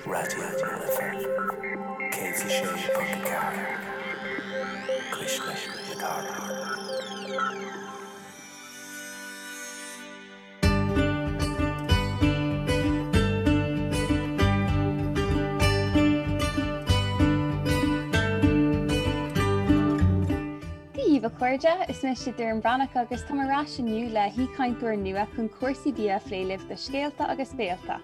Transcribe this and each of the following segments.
Raidió na Life 106.4, Cuisle na Cathrach. Dia dhaoibh a chairde, is mise Doireann Bhreathnach agus táim ar ais inniu le haoichainteoir nua chun cúrsaí bia a phlé libh do Scéalta agus Béalta.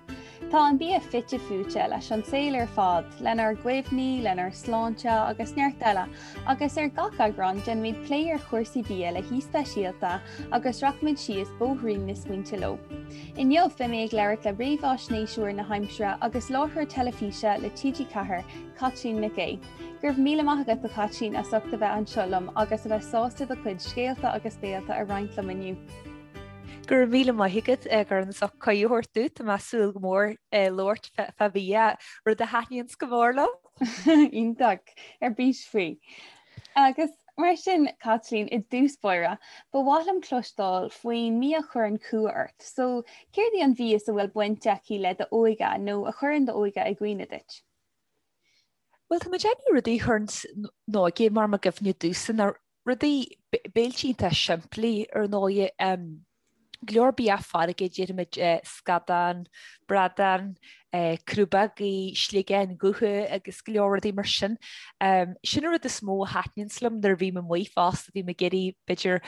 Tá an bia fite fuaite leis an saol ar fad, lenár gcuimhní, lenár sláinte agus neart eile, agus ar gach eagrán déanfaimid plé ar chúrsaí bia le haoi speisialta agus rachaimid síos bóithrín na smaointe leo. Inniu beidh mé ag labhairt le réamhaisnéiseoir na haimsire agus láithreoir teilifíse le TG4, Caitlín Nic Aoidh. Go raibh míle maith agat a Chaitlín as ucht a bheith anseo liom agus a bheith sásta do chuid scéalta agus béalta a roinnt liom inniu. Go raibh míle maith agat a Dhoireann as ucht cuireadh a thabhairt domh. Tá mé ag súil go mór labhairt fá bhia, rud a thaitníonns go mór liom. Iontach, ar bís faoi. Agus mar sin, Caitlín, i dtús báire, ba mhaith liom cloisteáil faoin mbia a chuireann cumha ort. So, céard í an mhias a bhfuil baint aici le d'óige nó a chuireann d'óige i gcuimhne duit? Bhuel, tá mé ag déanamh rudaí a chuireann m'óige mar i gcuimhne domhsa ná rudaí béiltí iontach simplí ar ndóigh. Go leor bia farraige, déarfaimid scadán, bradán, crúbógaí, sliogáin dhubha agus go leor rudaí mar sin. Sin an rud is mó a thaitníonns liom nuair a bhím amuigh fosta, bím ag iarraidh b'fhéidir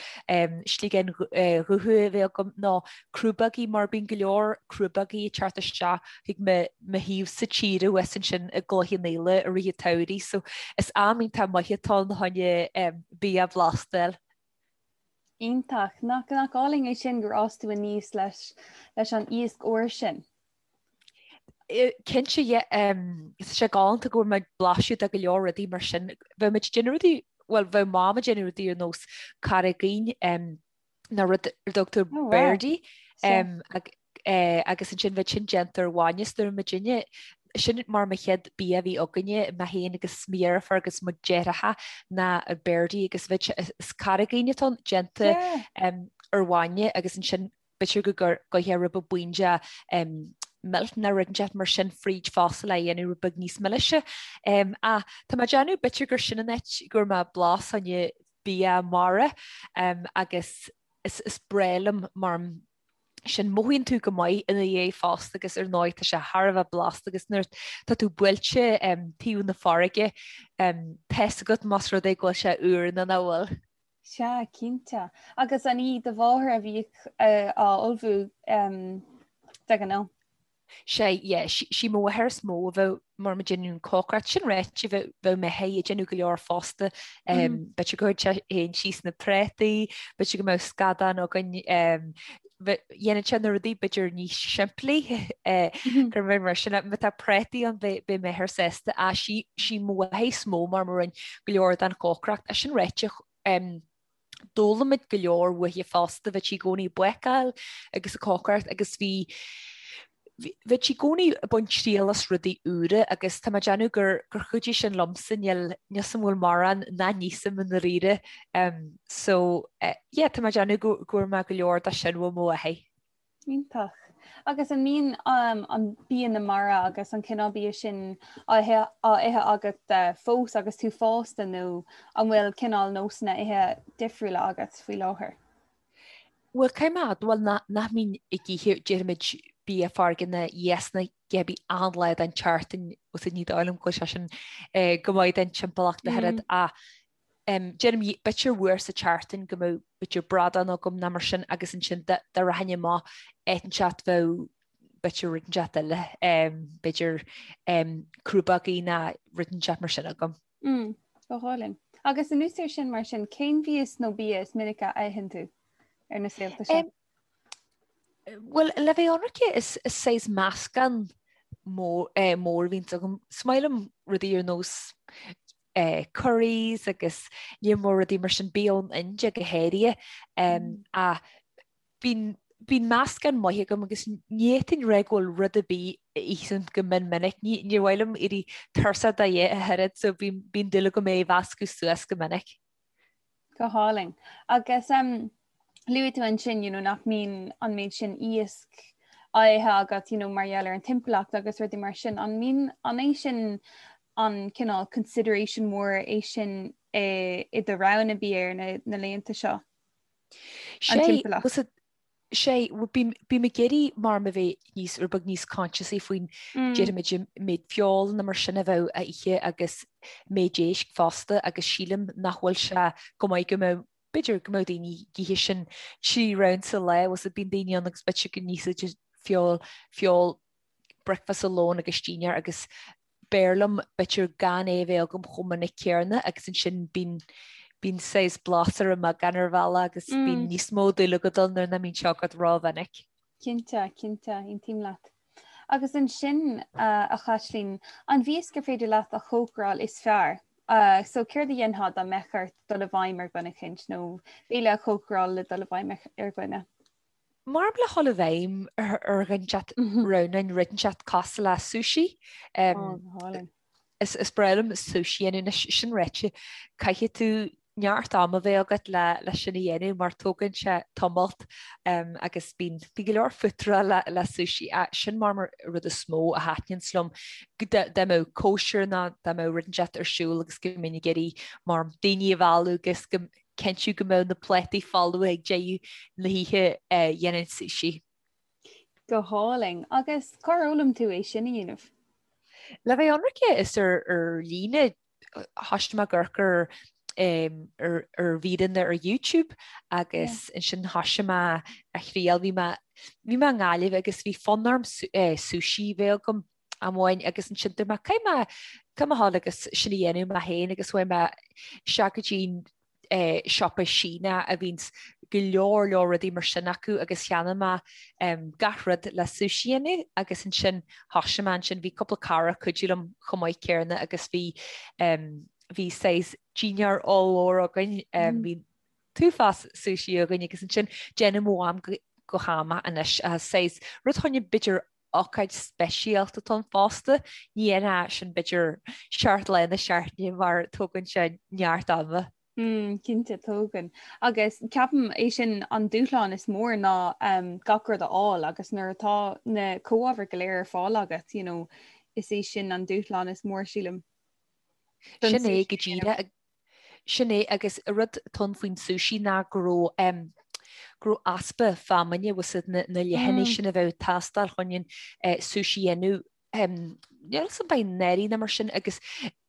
sliogáin dhubha a bheith agam nó crúbógaí mar bíonn go leor crúbógaí ag teacht isteach chuig mo thaobhsa tíre thuas ansin i gCloich Cheann Fhaola i rith an tsamhraidh so is am iontach maith atá ann chun bia blasta a fháil. Iontach. Nach nach álainn é sin gur fhás tú aníos leis leis an iasc úr sin? Cinnte, yeah. Tá sé galánta go bhfuair mé blaiseadh de go leor rudaí mar sin. Bheadh muid ag déanamh rudaí, bhuel bheadh Mam ag déanamh rudaí ar nós carraigín, nó rud ar a dtugtar oh, wow. birdie um, ag, eh, agus ansin bheadh sin déanta ar bhainne is nuair muidinne sin mar mo chéad bia a bhí againne mé féin agus mo dheirfiúr agus mo dheartháireacha ná birdie agus bheadh is carraigín atá déanta yeah. um, ar bhainne agus ansin b'fhéidir go gcuirfeá rud beag buíon de um, milk nó rud inteacht mar sin fríd fosta le dhéanamh rud beag níos milise. Um, ach tá mé ag déanamh b'fhéidir gur sin an áit go raibh mé blas an bia mara agus is breá liom mar sin mothaíonn tú go maith ina dhiaidh fosta agus ar ndóigh tá sé thar a bheith blasta agus nuair tá tú buailte taobh na farraige tá fhios agat más rud é go bhfuil sé úr nó nach bhfuil. Sea, cinnte. Agus an í do mháthair a bhíodh á ullmhú de ghnáth? Sea, yeah, sí mo mháthair is mó a bheadh mar ag déanamh an cócaireacht. Sin ráite, bheadh m'athair ag déanamh go leor fosta. B'fhéidir go gcuirfeadh sé féin síos na prátaí, b'fhéidir go mbeadh scadán againn. Dhéanfadh sé na rudaí b'fhéidir níos simplí gur mé mar sin. Má tá prátaí ann beidh m'athair sásta. Ach sí mo mháthair is mó mar a rinne go leor den chócaireacht. Sin ráite, D'fhoghlaim muid go leor uaithi fosta, bheadh sí i gcónaí ag bácáil agus ag cócaireacht agus bhí bheadh sí i gcónaí ag baint triail as rudaí úra agus tá mé ag déanamh gur gur chuidigh sin liomsa, níl níl 's a'm an bhfuil mórán nach n-íosaim i ndáiríre. So yeah tá mé ag déanamh go go bhfuair mé go leor de sin ó mo mháthair. Iontach. Agus an mbíonn an bia na mara agus an cineál bia sin á ithe agat fós agus tú fásta nó an bhfuil cineál nósanna ithe difriúla agat faoi láthair? Bhuel, caithfidh mé a admháil nach mbím ag ithe, déarfaimid, bia farraige nó iasc nó a dhath ar bith achan lá den tseachtain, agus ní dóigh liom go bhfuil sé sin go maith don timpeallacht ach oiread ach Déarfainn b'fhéidir uair sa tseachtain go mbeadh b'fhéidir bradán agam nó mar sin agus ansin dá rachainn amach áit inteacht bheadh b'fhéidir rud inteacht eile, b'fhéidir crúbógaí nó rud inteacht mar sin agam. Mm, go hálainn. Agus anuas air sin mar sin, cén mhias nó bia is minice a itheann tú ar na saolta seo? Bhuel, le bheith ionraic, is saghas meascán mór a bhíonns agam. Is maith liom rudaí ar nós curries agus lear mór rudaí mar sin, bia ón India go háirithe. Ach bíonn bíonn meascán maith agam agus ní fhéadfainn rá go bhfuil rud ar bith a ithim go mion minic. Ní níor mhaith liom éirí tuirseach de ach oiread so bíonn bíonn dúil agam é a mheascadh suas go minic. Go hálainn. Agus luaigh tú ansin you know, nach mbíonn an méid sin iasc á ithe agat you know, mar gheall ar an timpeallacht agus rudaí mar sin. An mbíonn an é sin an cineál consideration mór é sin i, i do roghanna bia ar na, na laethanta seo? An timpeallacht. Sé, bím ag iarraidh mar a bheith níos, rud beag níos consciousaí faoin déarfaimid an méid feoil nó mar sin a bheadh á ithe agus méid éisc fosta agus sílim nach bhfuil sé go maith go mbeadh, b'fhéidir go mbeadh daoine ag ithe sin 3 round sa lá, bhfuil a fhios agat bíonn daoine ann agus b'fhéidir go n-íosfaidh feoil, feoil bricfeasta, lón agus dinnéar agus b'fhearr liom b'fhéidir gan é a bheith agam chomh minic céarna agus ansin bíonn bíonn saghas blas ar an mbeagán ar bhealach agus bíonn níos mó dúil agat ann nuair nach mbíonn sé agat rómhinic. Cinnte, cinnte, aontaím leat. Agus ansin, a Chaitlín, an mhias gur féidir leat a chócaráil is fearr? So céard a dhéanfá dá mbeadh ort dul i bhfeidhm ar dhuine eicínt nó béile a chócaráil le dul i bhfeidhm ar dhuine? Mar le dhul i bhfeidhm ar dhuine inteacht roghnóinn rud inteacht cosúil le sushi. Is breá liom sushi a dhéanamh anois, sin ráite, caithfidh tú neart ama bheith agat le le sin a dhéanamh mar tógann sé tamalt agus bíonn bíonn go leor futrá le le sushi. Sin mar mar rud is mó a thaitníonns liom dá mbeadh cóisir nó dá mbeadh rud inteacht ar siúl agus go mbeinn ag iarraidh mar daoine a mhealladh agus go cinntiú go mbeadh na plátaí folamh ag deireadh na hoíche dhéanfainn sushi. Go hálainn. Agus cár fhoghlaim tú é sin a dhéanamh? Le bheith ionraice is ar ar líne thoisigh mé ag amharc ar ar ar mhíreanna ar YouTube agus ansin thoisigh mé a thriail. Bhí mé bhí mé i nGaillimh agus bhí fonn orm sushi a bheith agam. amháin agus ansin dúirt mé caithfidh mé caithfidh mé dhul agus sin a dhéanamh mé féin agus chuaigh mé isteach go dtí an siopa Síneach a bhíonns go leor leor rudaí mar sin acu agus cheannaigh mé gach rud le sushi a dhéanamh agus ansin thoisigh mé ansin bhí cúpla cara ag cuidiú liom chomh maith céarna agus bhí bhí saghas dinnéar ollmhór againn bhí t-uafás sushi againn agus ansin déanann mo mham go ham anois saghas rud choinne b'fhéidir ócáid speisialta atá ann fosta. Ní dhéanfá sin b'fhéidir seacht lá na seachtaine mar tógann sé neart ama. Mm, cinnte, tógann. Agus ceapaim é sin an dúshlán is mór ná um, gach rud a fháil agus nuair atá na comhábhair go léir ar fáil agat, you know, is é sin an dúshlán is mór sílim. Sin é go díreach Sin é, agus an rud atá ann faoin sushi ná go raibh em go raibh easpa feamainne bhfuil a fhios agat na na leathanaigh sin a bheadh ag teastáil chun an eh sushi a dhéanamh em níl a fhios agam ab é anuraidh nó mar sin agus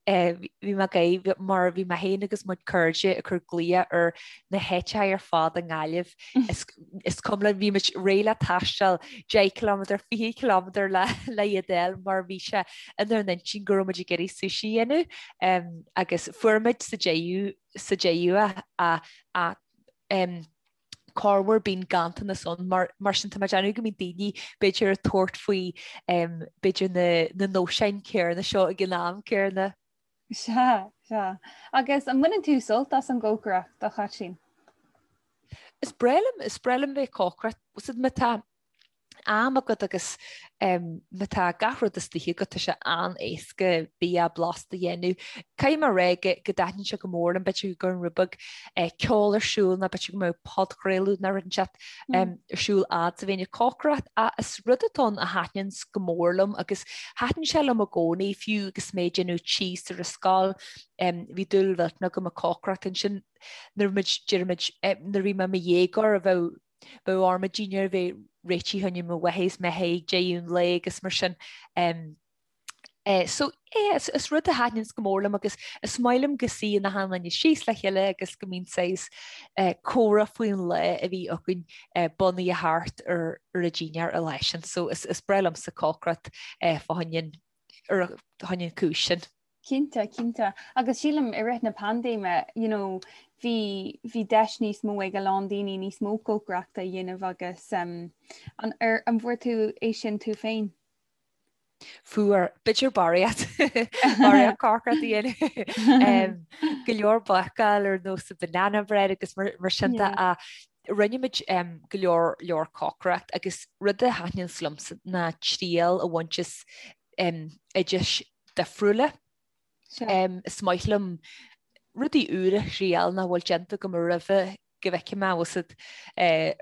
eh bhí mé ag gáire mar bhí mé féin agus mo chuid cairde ag cur glaoch ar na háiteacha ar fad i nGaillimh is is cuma linn bhí muid réidh le taisteal 10 kilometre 20 kilometre le le iad a fháil mar bhí sé inár n-intinn go raibh muid ag iarraidh sushi a dhéanamh agus fuair muid sa deireadh sa deireadh a a um, corruair bíonn ganntanas ann mar mar sin tá mé ag déanamh go mbíonn daoine b'fhéidir ag tabhairt faoi um, b'fhéidir na, na nóiseáin céarna seo ag an am céarna. Sea, sea. Agus an mbaineann tú sult as an gcócaireacht, a Chaitlín? Is breá liom, is breá liom bheith ag cócaireacht. Bhfuil a fhios agat má tá am agat agus má tá gach rud istigh agat, tá sé an-éasca bia blasta a dhéanamh. Caithfidh mé a rá go dtaitníonn sé go mór liom, b'fhéidir go gcuirfinn rud beag ceol ar siúl nó b'fhéidir go mbeadh podchraoladh nó rud inteacht ar siúl fhad is a bhínn ag cócaireacht ach is rud atá ann a thaitníonns go mór liom agus thaitin sé liom i gcónaí fiú agus mé ag déanamh tíos ar an scoil bhí dúil mhillteanach agam ag cócaireacht ansin nuair muid déarfaimid nuair a bhí mé i mo dhéagóir a bheadh bheadh orm an dinnéar a bheith réitithe choinne mo mháthair is m'athair ag deireadh an lae agus mar sin. So yeah, is, is rud a thaitníonns go mór liom agus is maith liom go suíonn achan duine síos le chéile agus go mbíonn saghas comhrá faoin lá a bhí againn bunaithe thart ar ar an dinnéar an lá sin. So is, is breá liomsa cócaireacht fá choinne an, ar choinne an cúis sin. Cinnte, cinnte. Agus sílim i rith na paindéime, you know, bhí, bhí deis níos mó ag a lán daoine níos mó cócaireachta a dhéanamh agus um, an, ar, an bhfuair tú é sin tú féin? Fuair, b'fhéidir barraíocht barraíocht cócaireacht a dhéanamh. Go leor bácáil ar nós banana bread agus mar, mar sin de a rinne muid um, go leor leor cócaireacht agus rud a thaitníonns liomsa ná triail a bhaint as um, oidis difriúla. Um, is maith liom rudaí úra a thriail nach bhfuil déanta agam roimhe go bhfeicfidh mé bhfuil a fhios agat,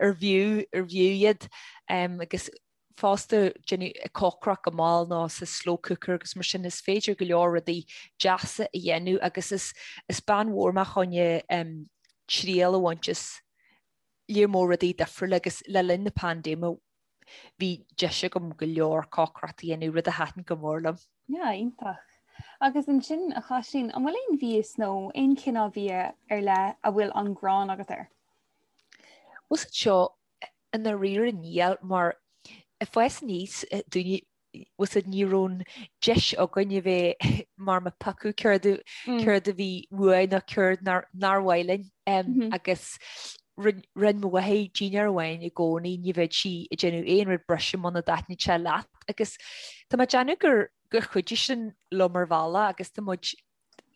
ar bhfiú ar bhfiú iad um, agus Fosta déanamh cócaireacht go mall nó sa slow cooker agus mar sin is féidir go leor rudaí deasa a dhéanamh agus is is bean mhór mé choinne triail a bhaint as lear mór rudaí difriúla agus le linn na paindéime bhí deis agam go leor cócaireacht a dhéanamh, rud a thaitin go mór liom. Yeah, iontach. Agus ansin, a Chaitlín, an bhfuil aon mhias nó aon chineál bia ar leith a bhfuil an ghráin agat air? Bhfuil a fhios agat seo, I ndáiríre níl mar ag fás aníos dúinne bhfuil a fhios agat ní raibh an deis againn a bheith mar ag piocadh céard céard a bhí uainn nó céard nár nár mhaith linn agus rinne mo mháthair dinnéar amháin i gcónaí ní bheadh sí ag déanamh aon rud breise muna dtaitníonn sé leat agus tá mé ag déanamh gur gur chuidigh sin liom ar bhealach agus tá muid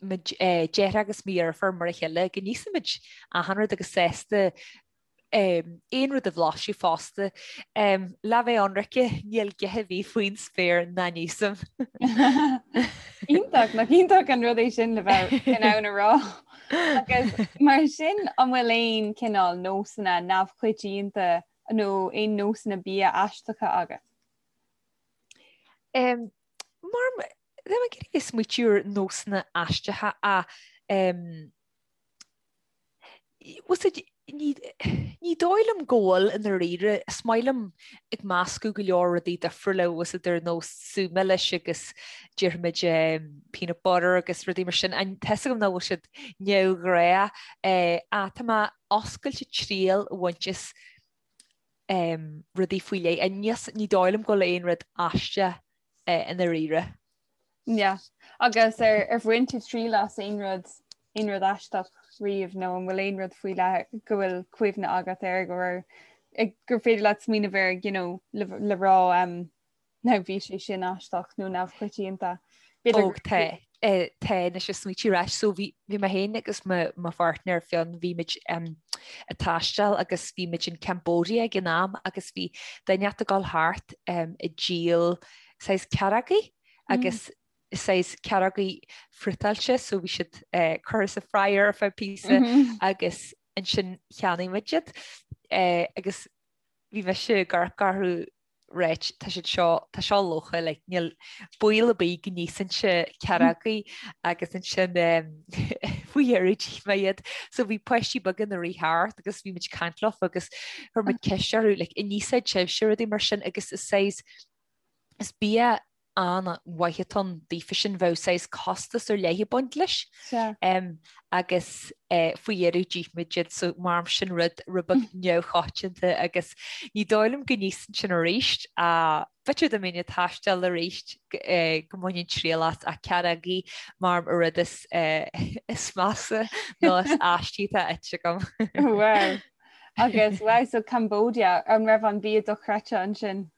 mo dheartháir agus mo dheirfiúr mar a chéile go n-íosfaimid achan rud agus sásta aon rud a bhlaiseadh fosta. Le bheith ionraice, níl gioth ar bith faoin spéir nach n-íosaim. Iontach, nach iontach an rud é sin le bheith in ann a rá. Agus mar sin an bhfuil aon cineál nósanna neamhchoitianta nó aon nósanna bia aisteacha agat? Mar tá mé ag iarraidh bheith ag smaoitiú ar nósanna aisteacha ach Bhfuil a fhios agat, ní dóigh liom go bhfuil i ndáiríre. Is maith liom ag meascadh go leor rudaí difriúla, bhfuil a fhios agat, ar nós sú milis agus déarfaimid peanut butter agus rudaí mar sin. Tá fhios agam nach bhfuil siad neamhghnách ach tá mé oscailte triail a bhaint as rudaí faoi leith. Ní dóigh liom go bhfuil aon rud aisteach i ndáiríre. Yeah. Agus ar ar bhain tú triail as aon rud aon rud aisteach riamh nó an bhfuil aon rud faoi leith go bhfuil cuimhne agat air go raibh gur féidir leat smaoineamh air you know, le, le rá um, nó bhí sé sin aisteach nó neamhchoitianta. Ó tá tá anois ag smaoitiú ar ais so bhí bhí mé féin agus mo mo pháirtnéir Fionn bhí muid um, ag taisteal agus bhí muid in Cambodia ag an am agus bhí duine ag dul thart um, ag díol saghas cearrógaí agus saghas cearrógaí friotáilte so bhí siad curtha sa fryer ar feadh píosa agus ansin cheannaigh muid iad agus bhí mise ag amharc orthu right tá siad seo tá seo lofa like níl baol ar bith go n-íosfainnse cearrógaí agus ansin faoi dheireadh d'ith mé iad so bhí páistí beaga ina rith thart agus bhí muid ag caint leofa agus chuir muid ceist orthu like an íosfaidh sibhse rudaí mar sin agus is saghas Is bia an-mhaith atá ann daofa sin, bheadh saghas costas ar leith ag baint leis. Agus faoi dheireadh d'ith muid iad so mar sin rud rud beag neamhchoitianta agus ní dóigh liom go n-íosfainn sin arís. B'fhéidir dá mbeinn ag taisteal arís go mbainfinn triail as ach cearrógaí mar an rud is is measa nó is aistí atá ite agam. Wow. Agus wow, so Cambodia, an raibh an bia dochreidte ansin?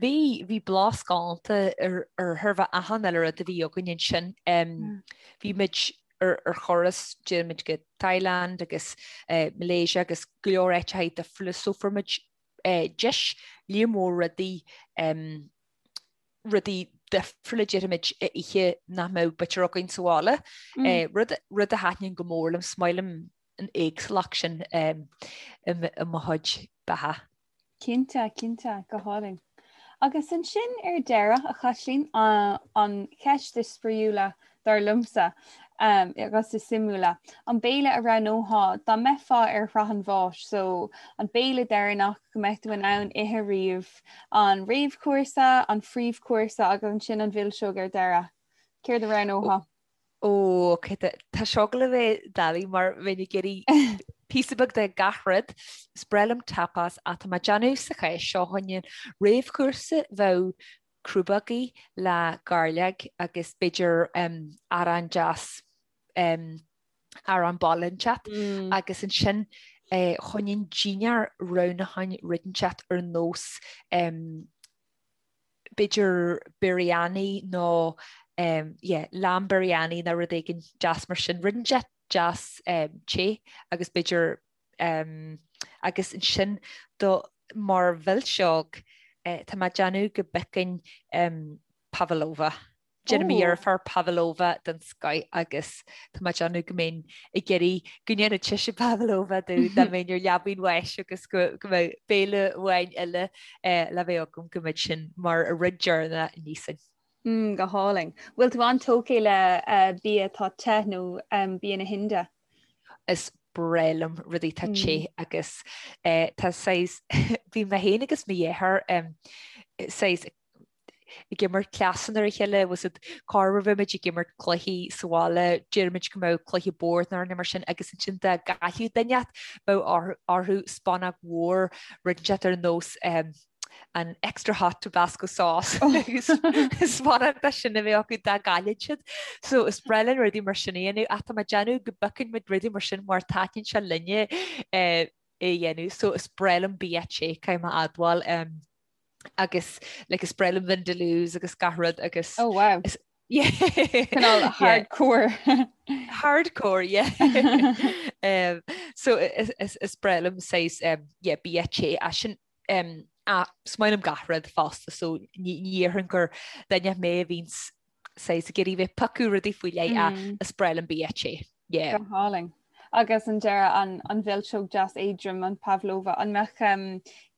Bhí, bhí blas galánta ar ar chóir a bheith achan uile rud a bhí againn ansin. Bhí muid ar ar thuras, d'imigh muid go Thailand agus Malaysia agus go leor áiteacha difriúla so fuair muid deis lear mór rudaí rudaí difriúla déarfaimid a ithe nach mbeadh b'fhéidir againn sa bhaile. Rud rud a thaitníonn go mór liom, is maith liom an éagsúlacht sin i mo chuid beatha. Cinnte, cinnte, go hálainn. Agus ansin ar deireadh, a Chaitlín, an cheist is spraíúla, dar liomsa, agus is suimiúla, an béile a roghnófá dá mbeifeá ar shraith an bháis, so an béile deireanach go mbeadh tú in ann ithe riamh, an réamhchúrsa, an phríomhchúrsa agus ansin an mhilseog ar deireadh. Céard a roghnófá? Ó, ok, tá seo ag gabháil a bheith doiligh mar bheinn ag iarraidh píosa beag de gach rud. Is breá liom tapas ach tá mé ag déanamh sa chás seo choinne réamhchúrsa bheadh crúbógaí le gairleog agus b'fhéidir arán deas, arán baile inteacht agus ansin choinne dinnéar roghnóchainn rud inteacht ar nós b'fhéidir biryani nó yeah, lamb biryani nó rud éigin deas mar sin, rud inteacht deas te agus b'fhéidir agus ansin do mar mhilseog tá mé ag déanamh go bpiocfainn pavlova. Déanann mo dheirfiúr pavlova den scoith agus tá mé ag déanamh go mbeinn ag iarraidh go ndéanfadh sise pavlova domh dá mbeinn ar leabaidh an bháis agus go mbeadh béile amháin eile le bheith agam go mbeadh sin mar a rud deireanach a n-íosfainn. Mm, go hálainn. Bhfuil tú an-tógtha le bia atá te nó bia na hInde? Is breá liom rudaí atá te agus tá saghas, bhí mé féin agus mo dheartháir saghas ag imirt cleasanna ar a chéile, was it corruair bheadh muid ag imirt cluichí sa bhaile, deirimid go mbeadh cluiche boird nó mar sin agus ansin dá gcaillfeadh duine inteacht bheadh orthu spúnóg mhór rud inteacht ar nós an extra hot Tabasco sauce agus spúnóg de sin a bheadh acu dá gcaillfeadh siad. So is breá linn rudaí mar sin a dhéanamh ach tá mé ag déanamh go bpiocann muid rudaí mar sin mar taitníonn sé linne é a dhéanamh. So is breá liom bia te, caithfidh mé a admháil. agus like is breá liom vindaloos agus gach rud agus Oh wow. Is, yeah. Cineál hardcore. Hardcore, yeah. um, so is, is, is breá liom saghas um, yeah, bia te as sin um, ah, is maith liom gach rud fosta so ní ní dhéarfainn gur duine mé a bhíonn saghas ag iarraidh bheith ag piocadh rudaí faoi leith ach is breá liom bia te. Yeah. Go hálainn. Agus an deireadh an, an mhilseog deas éadrom an pavlova, an mbeadh um,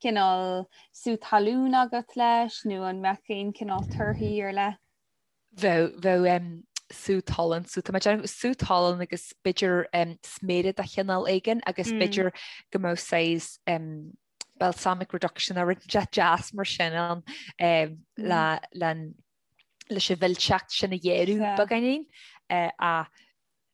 cineál sú talún agat leis nó an mbeadh aon cineál torthaí ar leith? Bheadh, bheadh um, sú talún, so tá mé ag déanamh sú talún agus b'fhéidir um, sméara de chineál éigin agus mm. b'fhéidir go mbeadh saghas um, balsamic reduction nó rud deas mar sin ann um, le, le leis an mhilseacht sin a ghéarú beagáinín ach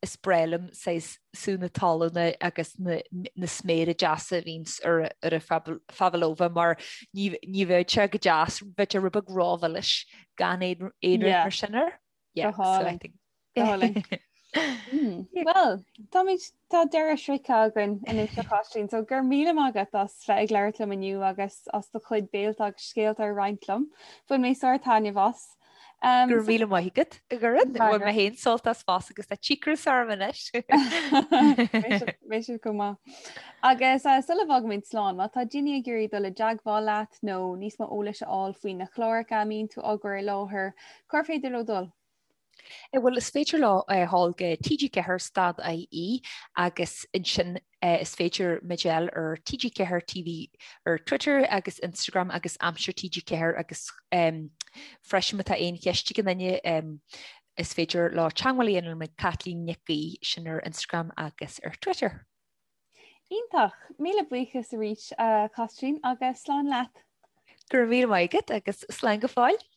is breá liom saghas sú na talúna agus na sméara deasa a bhíonns ar an phavlova mar ní bheadh sé go deas, bheadh sé rud beag rómhilis gan aon rud mar sin air. Yeah, so I think. Go hálainn. Hmm. Well, táimid tá deireadh sroichte againn anois a Chaitlín, so go raibh míle maith agat as bheith ag labhairt liom inniu agus as do chuid béilte agus scéalta a roinnt liom. Bhain mé sár-taitneamh as. Um, Go raibh míle maith agat a Dhoireann, bhain mé féin sult as fosta agus tá cíocras orm anois. Beidh sibh go maith. Agus uh, sula bhfágaimid slán, má tá daoine ag iarraidh dul i dteagmháil leat nó níos mó eolais a fháil faoi na cláracha a mbíonn tú á gcur i láthair, Cár féidir leo dul? Bhuel, is féidir leo dhul go TG4 stad IE agus ansin is féidir muid a fháil ar TG4 TV ar Twitter agus Instagram agus Aimsir TG4 agus freisin má tá aon cheist ag aon duine is féidir leo teagmháil a dhéanamh le Caitlín Nic Aoidh sin ar Instagram agus ar Twitter. Iontach! Míle buíochas arís a Chaitlín agus slán leat! Go raibh míle maith agat agus slán go fóill!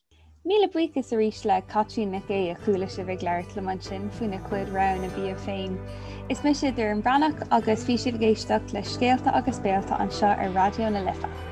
Míle buíochas arís le Caitlín Nic Aoidh a chuala sibh ag labhairt liom ansin faoina cuid roghanna bia féin. Is mise Doireann Breathnach agus bhí sibh ag éisteacht le Scéalta agus Béalta anseo ar Raidió na Life.